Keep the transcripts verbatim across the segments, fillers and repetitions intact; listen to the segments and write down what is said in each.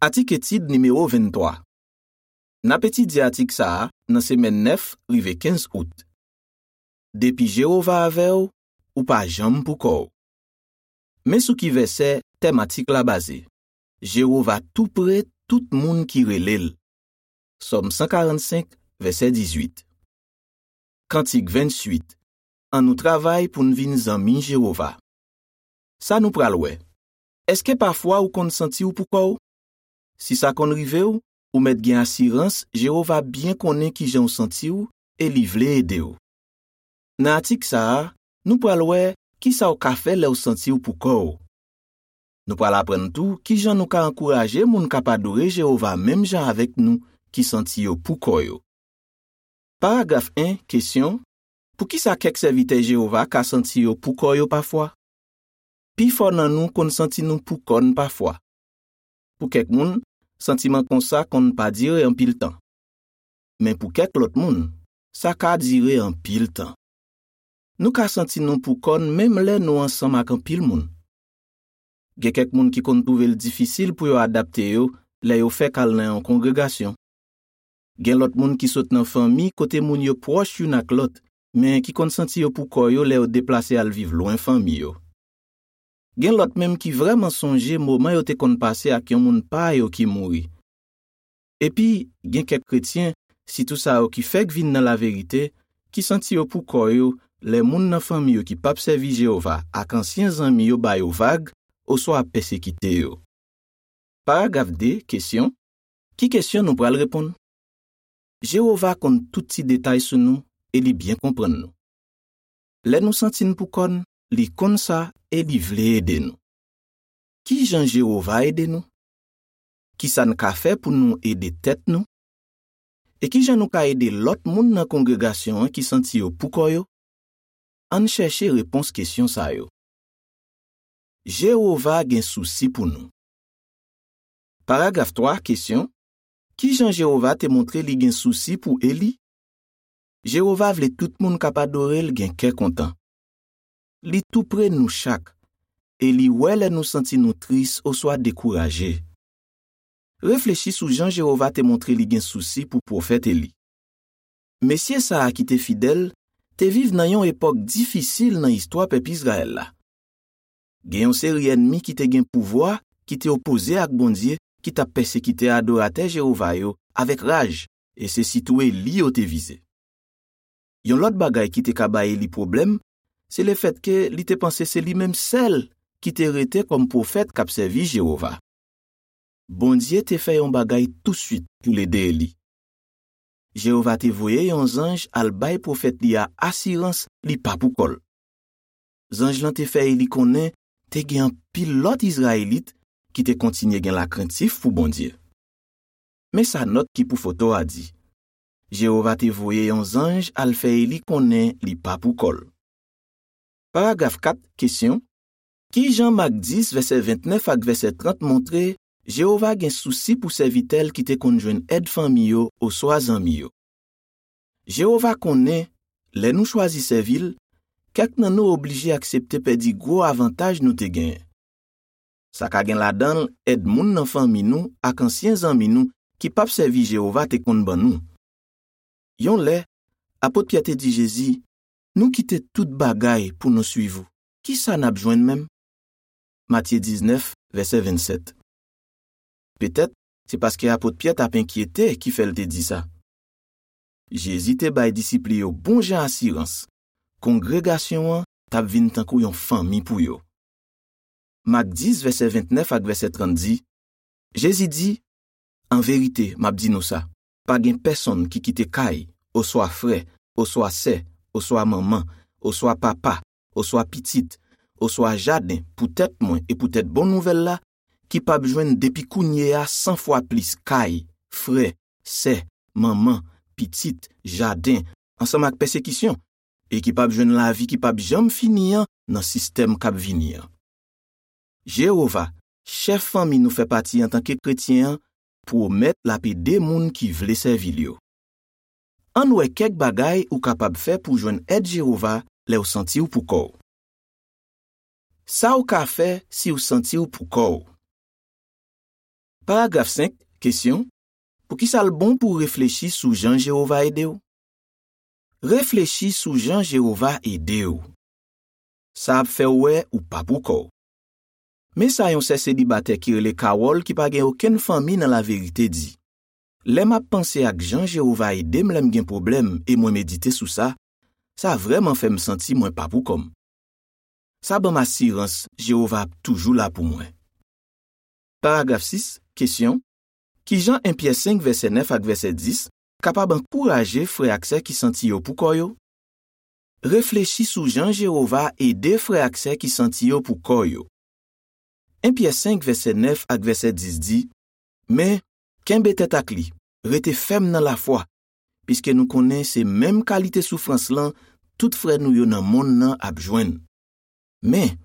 Atik etid nimewo venntwa. N ap etidye atik sa a nan semèn nèf rive kenz out. Depi Jewova avè w, ou pa janm poukò w. Men sou ki vèsè tèm atik la baze: Jewova toupre tout moun ki rele l. Sòm san karannsenk, vèsè dizuit. Kantik venntuit. Ann nou travay pou n vin zanmi Jewova. Sa nou pral wè. Èske pafwa ou konn santi w poukò w? Si sa konn rive w, ou mèt gen asirans Jewova byen konnen ki jan w santi w e li vle ede w. Nan atik sa a, nou pral wè ki sa w ka fè lè w santi w poukò w. Nou pral aprann tou ki jan nou ka ankouraje moun k ap adore Jewova menm jan avèk nou ki santi yo poukò yo. Paragraf en, kesyon: Poukisa kèk sèvitè Jewova ka santi yo poukò yo pafwa? Pifò nan nou konn santi nou poukò n pafwa. Pou kèk moun, santiman konsa konn pa dire anpil tan. Men pou kèk lòt moun, sa ka dire anpil tan. Nou ka santi nou poukò n menm lè nou ansanm ak anpil moun. Gen kèk moun ki konn twouve l difisil pou yo adapte yo lè yo fèk al nan yon kongregasyon. Gen lòt moun ki sot nan fanmi kote moun yo pwòch youn ak lòt, men ki konn santi yo poukò yo lè yo deplase al viv lwen fanmi yo. Gen lòt menm ki vrèman sonje moman yo te konn pase ak yon moun pa yo ki mouri. Epi, gen kèk kretyen, sitou sa yo ki fèk vin nan laverite, ki santi yo poukò yo lè moun nan fanmi yo ki p ap sèvi Jewova ak ansyen zanmi yo ba yo vag oswa ap pèsekite yo. Paragraf de, kesyon: Ki kesyon nou pral reponn? Jewova konn tout ti detay sou nou e li byen konprann nou. Lè nou santi n poukò n, li konn sa e li vle ede nou. Ki jan Jewova ede nou? Ki sa n ka fè pou nou ede tèt nou? E ki jan nou ka ede lòt moun nan kongregasyon an ki santi yo poukò yo? Ann chèche repons kesyon sa yo. Jewova gen sousi pou nou. Paragraf twa, kesyon: Ki jan Jewova te montre li gen sousi pou Eli? Jewova vle tout moun k ap adore l gen kè kontan. Li toupre nou chak, e li wè lè nou santi nou tris oswa dekouraje. Reflechi sou jan Jewova te montre li gen sousi pou pwofèt Eli. Mesye sa a ki te fidèl te viv nan yon epòk difisil nan istwa pèp Izrayèl la. Gen yon seri ènmi ki te gen pouvwa ki te opoze ak Bondye, ki t ap pèsekite adoratè Jewova yo avèk raj, e se sitou Eli yo te vize. Yon lòt bagay ki te ka bay Eli pwoblèm, se lefètke li te panse se li menm sèl ki te rete kòm pwofèt k ap sèvi Jewova. Bondye te fè yon bagay tousuit pou l ede Eli. Jewova te voye yon zanj al bay pwofèt li a asirans li pa poukò l. Zanj lan te fè Eli konnen te gen anpil lòt Izrayelit ki te kontinye gen lakrentif pou Bondye. Men sa nòt ki pou foto a di: Jewova te voye yon zanj al fè Eli konnen li pa poukò l. Paragraf kat, kesyon: Ki jan Mak dis, vèsè ventnèf ak vèsè trant montre Jewova gen sousi pou sèvitè l ki te konn jwenn èd fanmi yo oswa zanmi yo? Jewova konnen, lè nou chwazi sèvi l, kèk nan nou oblije aksepte pèdi gwo avantaj nou te genyen. Sa ka gen ladan l èd moun nan fanmi nou ak ansyen zanmi nou ki p ap sèvi Jewova te konn ban nou. Yon lè, apot Pyè te di Jezi: "Nou kite tout bagay pou nou suiv ou. Ki sa n ap jwenn menm?" Matye diznèf, vèsè vennsèt. Petèt, se paske apot Pyè t ap enkyete ki fè l te di sa. Jezi te bay disip li yo bon jan asirans, kongregasyon an t ap vin tankou yon fanmi pou yo. Mak dis, vèsè ventnèf ak vèsè trant di: Jezi di: "An verite, m ap di nou sa, pa gen pèsonn ki kite kay, oswa frè, oswa sè, oswa manman, oswa papa, oswa pitit, oswa jaden poutèt mwen e poutèt bon nouvèl la, ki p ap jwenn depi kounye a san fwa plis kay, frè, sè, manman, pitit, jaden, ansanm ak pèsekisyon, e ki p ap jwenn lavi ki p ap janm fini an nan sistèm k ap vini an." Jewova, chèf fanmi nou fè pati antanke kretyen an, pwomèt l ap ede moun ki vle sèvi l yo. Ann wè kèk bagay ou kapab fè pou w jwenn èd Jewova lè w santi w poukò w. Sa w ka fè si w santi w poukò w. Paragraf senk, kesyon, poukisa l bon pou w reflechi sou jan Jewova ede w? Reflechi sou jan Jewova ede w. Sa ap fè w wè ou pa poukò w. Men sa yon sè selibatè ki rele Carol, ki pa gen okenn fanmi nan laverite, di: Lè m ap panse ak jan Jewova ede m lè m gen pwoblèm e mwen medite sou sa, sa vrèman fè m santi mwen pa poukò m. Sa ban m asirans Jewova ap toujou la pou mwen. Paragraf sis, kesyon, ki jan en Pyè senk vèsè nèf ak vèsè dis kapab ankouraje frè ak sè ki santi yo poukò yo? Reflechi sou jan Jewova ede frè ak sè ki santi yo poukò yo. En Pyè senk vèsè nèf ak vèsè dis di: Men, kenbe tèt ak li, rete fèm nan lafwa, piske nou konnen se menm kalite soufrans lan tout frè nou yo nan monn nan ap jwenn. Men,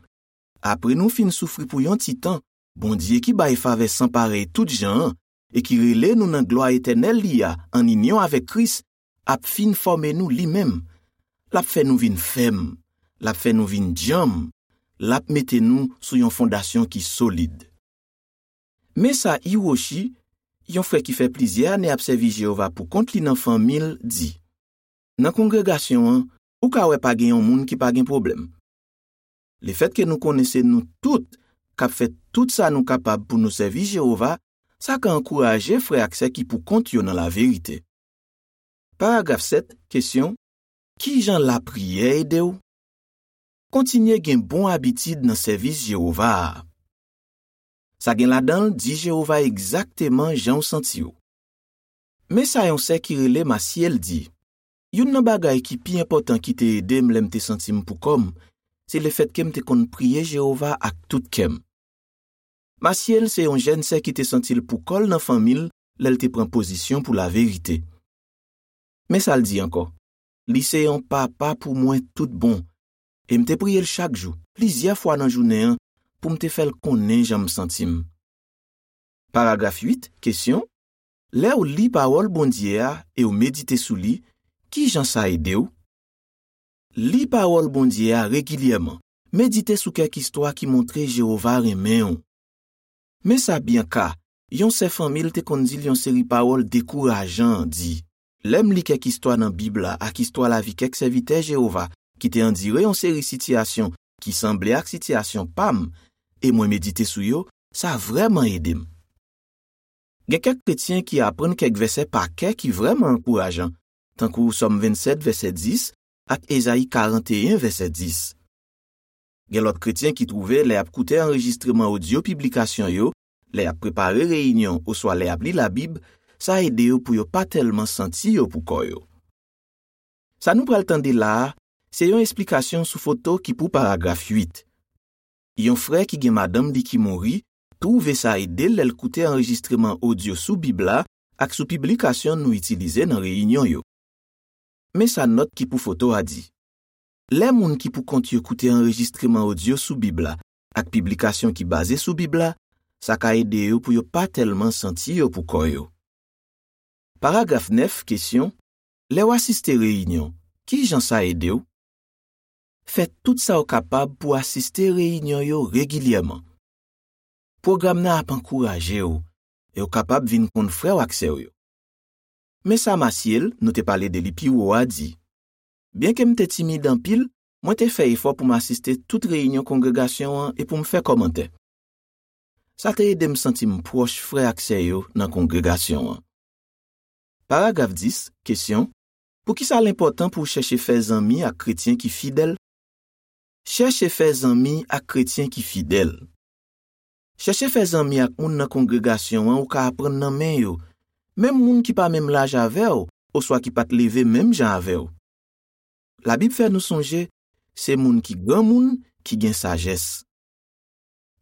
apre nou fin soufri pou yon ti tan, Bondye ki bay favè san parèy tout jan an e ki rele nou nan glwa etènèl li a ann inyon avèk Kris, ap fin fòme nou li menm. L ap fè nou vin fèm, l ap fè nou vin djanm, l ap mete nou sou yon fondasyon ki solid. Men sa Hiroshi, yon frè ki fè plizyè ane ap sèvi Jewova poukont li nan fanmi l, di: Nan kongregasyon an, ou ka wè pa gen yon moun ki pa gen pwoblèm. Lefètke nou konnen se nou tout k ap fè tout sa nou kapab pou nou sèvi Jewova, sa ka ankouraje frè ak sè ki poukont yo nan laverite. Paragraf sèt, kesyon, ki jan lapriyè ede w? Kontinye gen bon abitid nan sèvis Jewova a. Sa gen ladan l di Jewova egzakteman jan w santi w. Men sa yon sè ki rele Masyèl di: Youn nan bagay ki pi enpòtan ki te ede m lè m te santi m poukò m, se lefètke m te konn priye Jewova ak tout kè m. Masyèl se yon jèn sè ki te santi l poukò l nan fanmi l lè l te pran pozisyon pou laverite. Men sa l di ankò: Li se yon papa pou mwen tout bon, e m te priye l chak jou, plizyè fwa nan jounen an, pou m te fè l konnen jan m santi m. Paragraf uit, kesyon, lè w li pawòl Bondye a e w medite sou li, ki jan sa ede w? Li pawòl Bondye a regilyèman. Medite sou kèk istwa ki montre Jewova renmen w. Men sa Bianca, yon sè fanmi l te konn di l yon seri pawòl dekourajan, di: Lè m li kèk istwa nan Bib la ak istwa lavi kèk sèvitè Jewova ki te andire yon seri sitiyasyon ki sanble ak sitiyasyon pa m, e mwen medite sou yo, sa vrèman ede m. Gen kèk kretyen ki aprann kèk vèsè pa kè ki vrèman ankourajan, tankou Sòm vennsèt vèsè dis ak Ezayi karanteyen vèsè dis. Gen lòt kretyen ki twouve lè y ap koute anrejistreman odyo piblikasyon yo, lè y ap prepare reyinyon oswa lè y ap li Labib, sa ede yo pou yo pa tèlman santi yo poukò yo. Sa nou pral tande la a, se yon esplikasyon sou foto ki pou paragraf uit. Yon frè ki gen madanm li ki mouri twouve sa ede l lè l koute anrejistreman odyo sou Bib la ak sou piblikasyon nou itilize nan reyinyon yo. Men sa nòt ki pou foto a di: Lè moun ki poukont yo koute anrejistreman odyo sou Bib la ak piblikasyon ki baze sou Bib la, sa ka ede yo pou yo pa tèlman santi yo poukò yo. Paragraf nèf, kesyon, lè w asiste reyinyon, ki jan sa ede w? Fè tout sa w kapab pou w asiste reyinyon yo regilyèman. Pwogram nan ap ankouraje w, e w kapab vin konn frè w ak sè w yo. Men sa Masyèl, nou te pale de li pi wo a, di: Byenke m te timid anpil, mwen te fè efò pou m asiste tout reyinyon kongregasyon an e pou m fè kòmantè. Sa te ede m santi m pwòch frè ak sè yo nan kongregasyon an. Paragraf dis, kesyon, poukisa l enpòtan pou w chèche fè zanmi ak kretyen ki fidèl? Chèche fè zanmi ak kretyen ki fidèl. Chèche fè zanmi ak moun nan kongregasyon an ou ka aprann nan men yo, menm moun ki pa menm laj avè w oswa ki pa t leve menm jan avè w. Labib fè nou sonje, se moun ki granmoun ki gen sajès.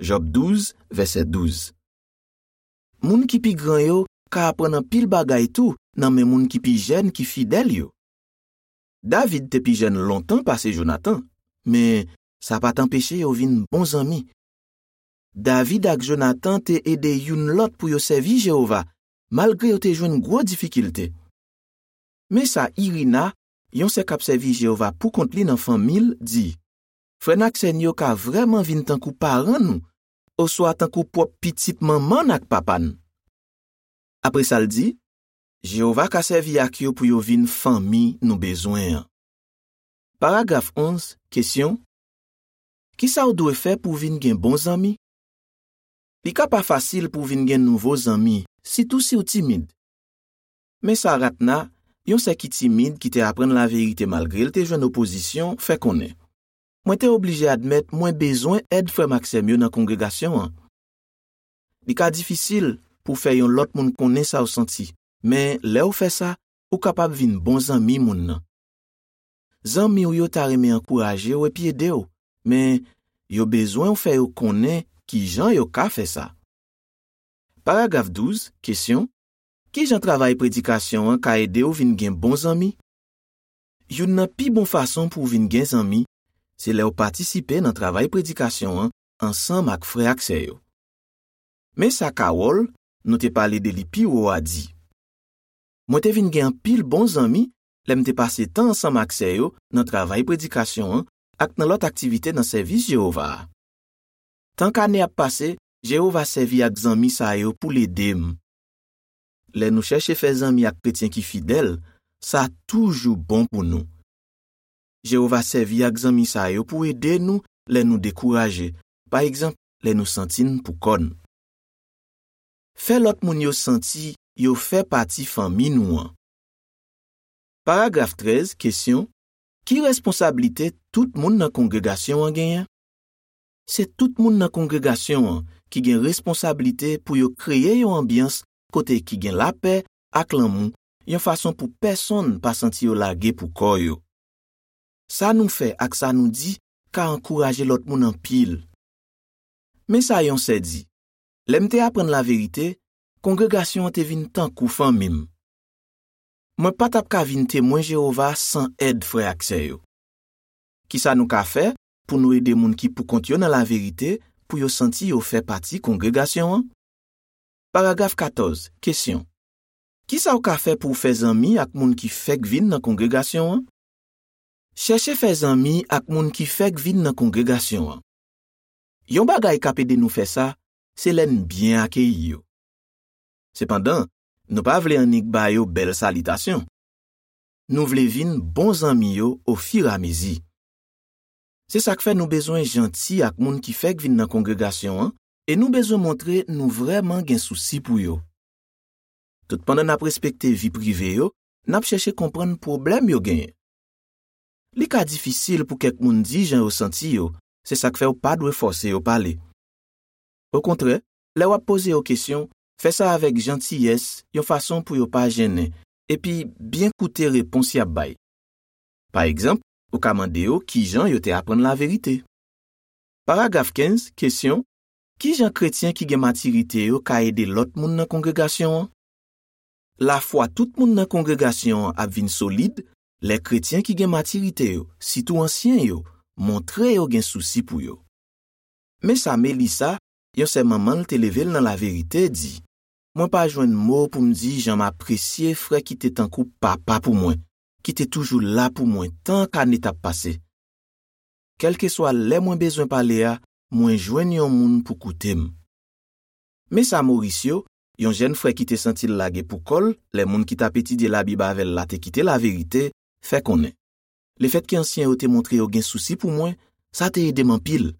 Jòb douz, vèsè douz. Moun ki pi gran yo ka aprann anpil bagay tou nan men moun ki pi jèn ki fidèl yo. David te pi jèn lontan pase Jonatan, men sa pa t anpeche yo vin bon zanmi. David ak Jonatan te ede youn lòt pou yo sèvi Jewova, malgre yo te jwenn gwo difikilte. Men sa Irina, yon sè k ap sèvi Jewova poukont li nan fanmi l, di: Frè n ak sè n yo ka vrèman vin tankou paran nou, oswa tankou pwòp pitit manman n ak papa n. Apre sa, l di, Jewova ka sèvi ak yo pou yo vin fanmi nou bezwen an. Paragraf onz, kesyon, ki sa w dwe fè pou w vin gen bon zanmi? Li ka pa fasil pou w vin gen nouvo zanmi, sitou si w timid. Men sa Ratna, yon sè ki timid ki te aprann laverite malgre l te jwenn opozisyon, fè konnen, mwen te oblije admèt mwen bezwen èd frè m ak sè m yo nan kongregasyon an. Li ka difisil pou w fè yon lòt moun konnen sa w santi, men lè w fè sa, ou kapab vin bon zanmi moun nan. Zanmi w yo ta renmen ankouraje w epi ede w, men yo bezwen w fè yo konnen ki jan yo ka fè sa. Paragraf douz, kesyon, ki jan travay predikasyon an ka ede w vin gen bon zanmi? Youn nan pi bon fason pou w vin gen zanmi, se lè w patisipe nan travay predikasyon an ansanm ak frè ak sè yo. Men sa Carol, nou te pale de li pi wo a, di, mwen te vin gen anpil bon zanmi lè m te pase tan ansanm ak sè yo nan travay predikasyon an ak nan lòt aktivite nan sèvis Jewova a. Tank ane ap pase, Jewova sèvi ak zanmi sa yo pou l ede m. Lè nou chèche fè zanmi ak kretyen ki fidèl, sa toujou bon pou nou. Jewova sèvi ak zanmi sa yo pou ede nou lè nou dekouraje, pa egzanp, lè nou santi n poukò n. Fè lòt moun yo santi yo fè pati fanmi nou an. Paragraf trèz, kesyon, ki responsablite tout moun nan kongregasyon an genyen? Se tout moun nan kongregasyon an ki gen responsablite pou yo kreye yon anbyans kote ki gen lapè ak lanmou, yon fason pou pèsonn pa santi yo lage pou kò yo. Sa nou fè ak sa nou di ka ankouraje lòt moun anpil. Men sa yon sè di, lè m te aprann laverite, kongregasyon an te vin tankou fanmi m. Mwen pa t ap ka vin Temwen Jewova san èd frè ak sè yo. Ki sa nou ka fè pou nou ede moun ki poukont yo nan laverite pou yo santi yo fè pati kongregasyon an? Paragraf katòz, kesyon, ki sa w ka fè pou w fè zanmi ak moun ki fèk vin nan kongregasyon an? Chèche fè zanmi ak moun ki fèk vin nan kongregasyon an. Yon bagay k ap ede nou fè sa, se lè n byen akeyi yo. Sepandan, nou pa vle annik ba yo bèl salitasyon. Nou vle vin bon zanmi yo ofiramezi. Se sa k fè nou bezwen janti ak moun ki fèk vin nan kongregasyon an, e nou bezwen montre nou vrèman gen sousi pou yo. Toutpandan n ap respekte vi prive yo, n ap chèche konprann pwoblèm yo genyen. Li ka difisil pou kèk moun di jan yo santi yo, se sa k fè w pa dwe fòse yo pale. Okontrè, lè w ap poze yo kesyon, fè sa avèk jantiyès, yon fason pou yo pa jennen, epi byen koute repons y ap bay. Pa egzanp, ou ka mande yo ki jan yo te aprann laverite. Paragraf kenz, kesyon, ki jan kretyen ki gen matirite yo ka ede lòt moun nan kongregasyon an? Lafwa tout moun nan kongregasyon an ap vin solid lè kretyen ki gen matirite yo, sitou ansyen yo, montre yo gen sousi pou yo. Men sa Melissa, yon sè manman l te leve l nan laverite, di, mwen pa jwenn mo pou m di jan m apresye frè ki te tankou papa pou mwen, ki te toujou la pou mwen tan k ane t ap pase. Kèlkeswa lè mwen bezwen pale a, mwen jwenn yon moun pou koute m. Men sa Mauricio, yon jèn frè ki te santi l lage pou kò l lè moun ki t ap etidye Labib avè l la te kite laverite, fè konnen, lefètke ansyen yo te montre yo gen sousi pou mwen, sa te ede m anpil.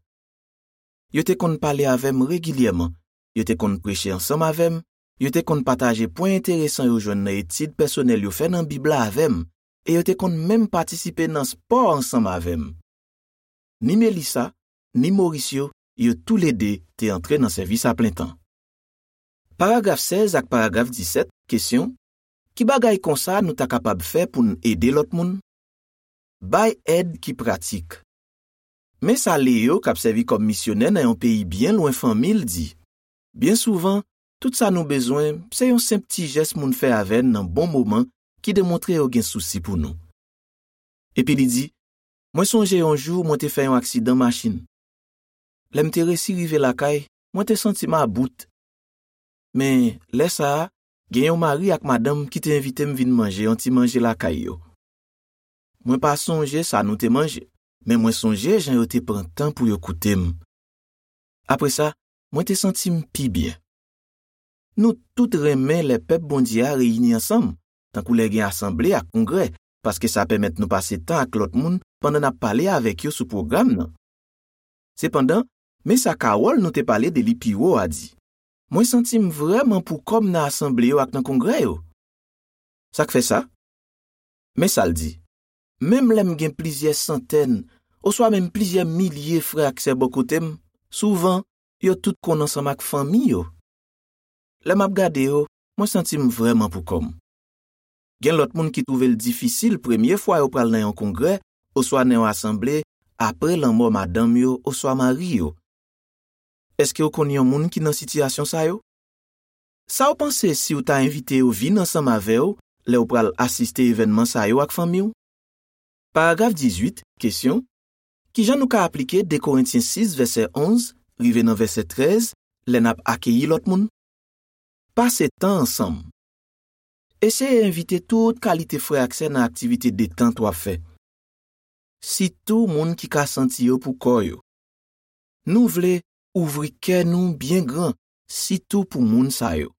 Yo te konn pale avè m regilyèman, yo te konn preche ansanm avè m, yo te konn pataje pwen enteresan yo jwenn nan etid pèsonèl yo fè nan Bib la avè m, e yo te konn menm patisipe nan spò ansanm avè m. Ni Melissa, ni Mauricio, yo toulede te antre nan sèvis aplentan. Paragraf sèz ak paragraf disèt, kesyon, ki bagay konsa nou ta kapab fè pou n ede lòt moun? Bay èd ki pratik. Men sa Leo, k ap sèvi kòm misyonè nan yon peyi byen lwen fanmi l, di, byen souvan, tout sa nou bezwen, se yon senp ti jès moun fè avè n nan bon moman ki demontre yo gen sousi pou nou. Epi li di, mwen sonje yon jou mwen te fè yon aksidan machin. Lè m te resi rive lakay, mwen te santi m about. Men, lè sa a, gen yon mari ak madanm ki te envite m vin manje yon ti manje lakay yo. Mwen pa sonje sa nou te manje, men mwen sonje jan yo te pran tan pou yo koute m. Apre sa, mwen te santi m pi byen. Nou tout renmen lè pèp Bondye a reyini ansanm, tankou lè gen asanble ak kongrè, paske sa pèmèt nou pase tan ak lòt moun pandan n ap pale avèk yo sou pwogram nan. Sepandan, men sa Carol nou te pale de li pi wo a di: Mwen santi m vrèman pou kò m nan asanble yo ak nan kongrè yo. Sa k fè sa? Men sa l di: Menm lè m gen plizyè santèn, oswa menm plizyè milye frè ak sè bò kote m, souvan, yo tout konn ansanm ak fanmi yo. Lè m ap gade yo, mwen santi m vrèman pou kò m. Gen lòt moun ki twouve l difisil premye fwa yo pral nan yon kongrè oswa nan yon asanble apre lanmò madanm yo oswa mari yo. Èske w konn yon moun ki nan sitiyasyon sa yo? Sa w panse si w ta envite yo vin ansanm avè w lè w pral asiste evènman sa yo ak fanmi w? Paragraf dizuit, kesyon: Ki jan nou ka aplike de Korentyen sis, vèsè onz, rive nan vèsè trèz, lè n ap akeyi lòt moun? Pase tan ansanm. Eseye envite tout kalite frè ak sè nan aktivite detant w ap fè. Sitou moun ki ka santi yo pou kò yo. Nou vle ouvri kè nou byen gran, sitou pou moun sa yo.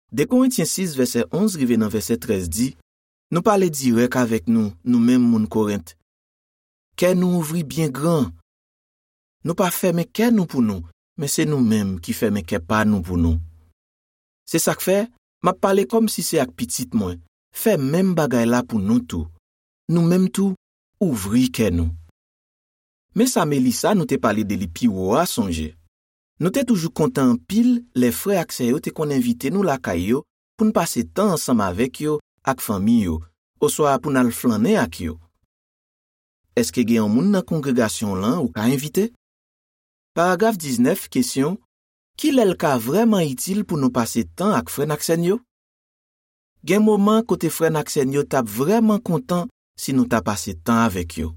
De Korentyen sis, vèsè onz rive nan vèsè trèz di: Nou pale dirèk avèk nou, nou menm moun Korent. Kè nou ouvri byen gran. Nou pa fèmen kè nou pou nou, men se nou menm ki fèmen kè pa nou pou nou. Se sa k fè, m ap pale kòmsi se ak pitit mwen. Fè menm bagay la pou nou tou. Nou menm tou, ouvri kè nou. Men sa Melissa nou te pale de li pi wo a sonje. Nou te toujou kontan anpil lè frè ak sè yo te konn envite nou lakay yo pou n pase tan ansanm avèk yo ak fanmi yo, oswa pou n al flannen ak yo. Èske gen yon moun nan kongregasyon w lan ou ka envite? Paragraf diznèf, kesyon: Ki lè l ka vrèman itil pou nou pase tan ak frè n ak sè n yo? Gen moman kote frè n ak sè n yo t ap vrèman kontan si nou ta pase tan avèk yo.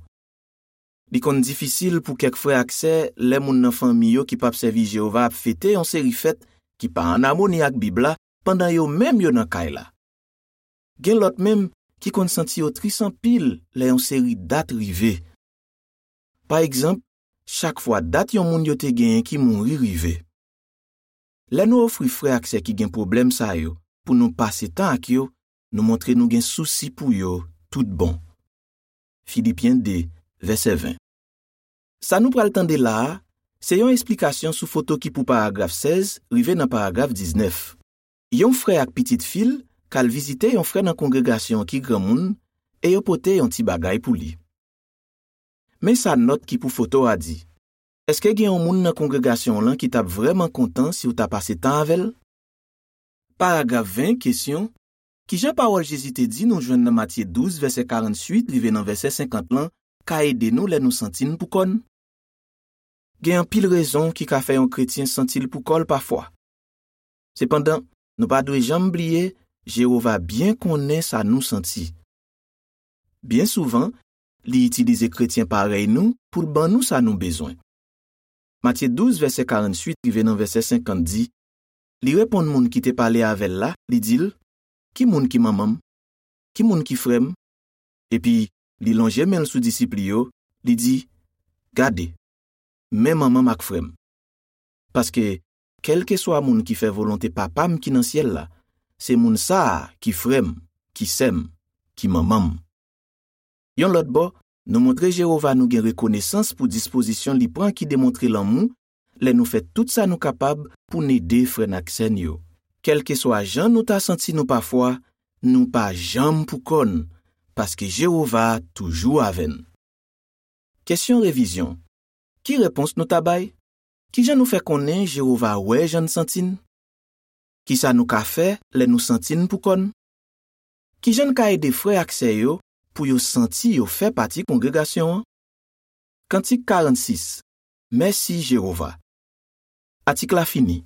Li konn difisil pou kèk frè ak sè lè moun nan fanmi yo ki p ap sèvi Jewova ap fete yon seri fèt ki pa ann amoni ak Bib la pandan yo menm yo nan kay la. Gen lòt menm ki konn santi yo tris anpil lè yon seri dat rive. Pa egzanp, chak fwa dat yon moun yo te genyen ki mouri rive. Lè nou ofri frè ak sè ki gen pwoblèm sa yo pou nou pase tan ak yo, nou montre nou gen sousi pou yo tout bon. Filipyen de, vèsè ven. Sa nou pral tande la a, se yon esplikasyon sou foto ki pou paragraf sèz rive nan paragraf diznèf. Yon frè ak pitit fi l k al vizite yon frè nan kongregasyon an ki granmoun, e yo pote yon ti bagay pou li. Men sa nòt ki pou foto a di: Èske gen yon moun nan kongregasyon w lan ki t ap vrèman kontan si w ta pase tan avè l? Paragraf ven, kesyon: Ki jan pawòl Jezi te di nou jwenn nan Matye douz, vèsè karantuit rive nan vèsè senkant lan, ka ede nou lè nou santi n pou kò n? Gen anpil rezon ki ka fè yon kretyen santi l pou kò l pafwa. Sepandan, nou pa dwe janm bliye Jewova byen konnen sa nou santi. Byen souvan, li itilize kretyen parèy nou pou l ban nou sa nou bezwen. Matye douz, vèsè karantuit rive nan vèsè senkant di: Li reponn moun ki te pale avè l la, li di l: Ki moun ki manman m? Ki moun ki frè m? Epi, li lonje men l sou disip li yo, li di: Gade, men manman m ak frè m. Paske, kèlkeswa moun ki fè volonte Papa m ki nan syèl la, se moun sa a ki frè m, ki sè m, ki manman m. Yon lòt bò, nou montre Jewova nou gen rekonesans pou dispozisyon li pran ki demontre lanmou lè nou fè tout sa nou kapab pou n ede frè n ak sè n yo. Kèlkeswa jan nou ta santi nou pafwa, nou pa janm pou kò n, paske Jewova toujou avè n. Kesyon revizyon: Ki repons nou ta bay? Ki jan nou fè konnen Jewova wè jan n santi n? Ki sa nou ka fè lè nou santi n pou kò n? Ki jan n ka ede frè ak sè yo pou yo santi yo fè pati kongregasyon an? Kantik karannsis. Mèsi Jewova. Atik la fini.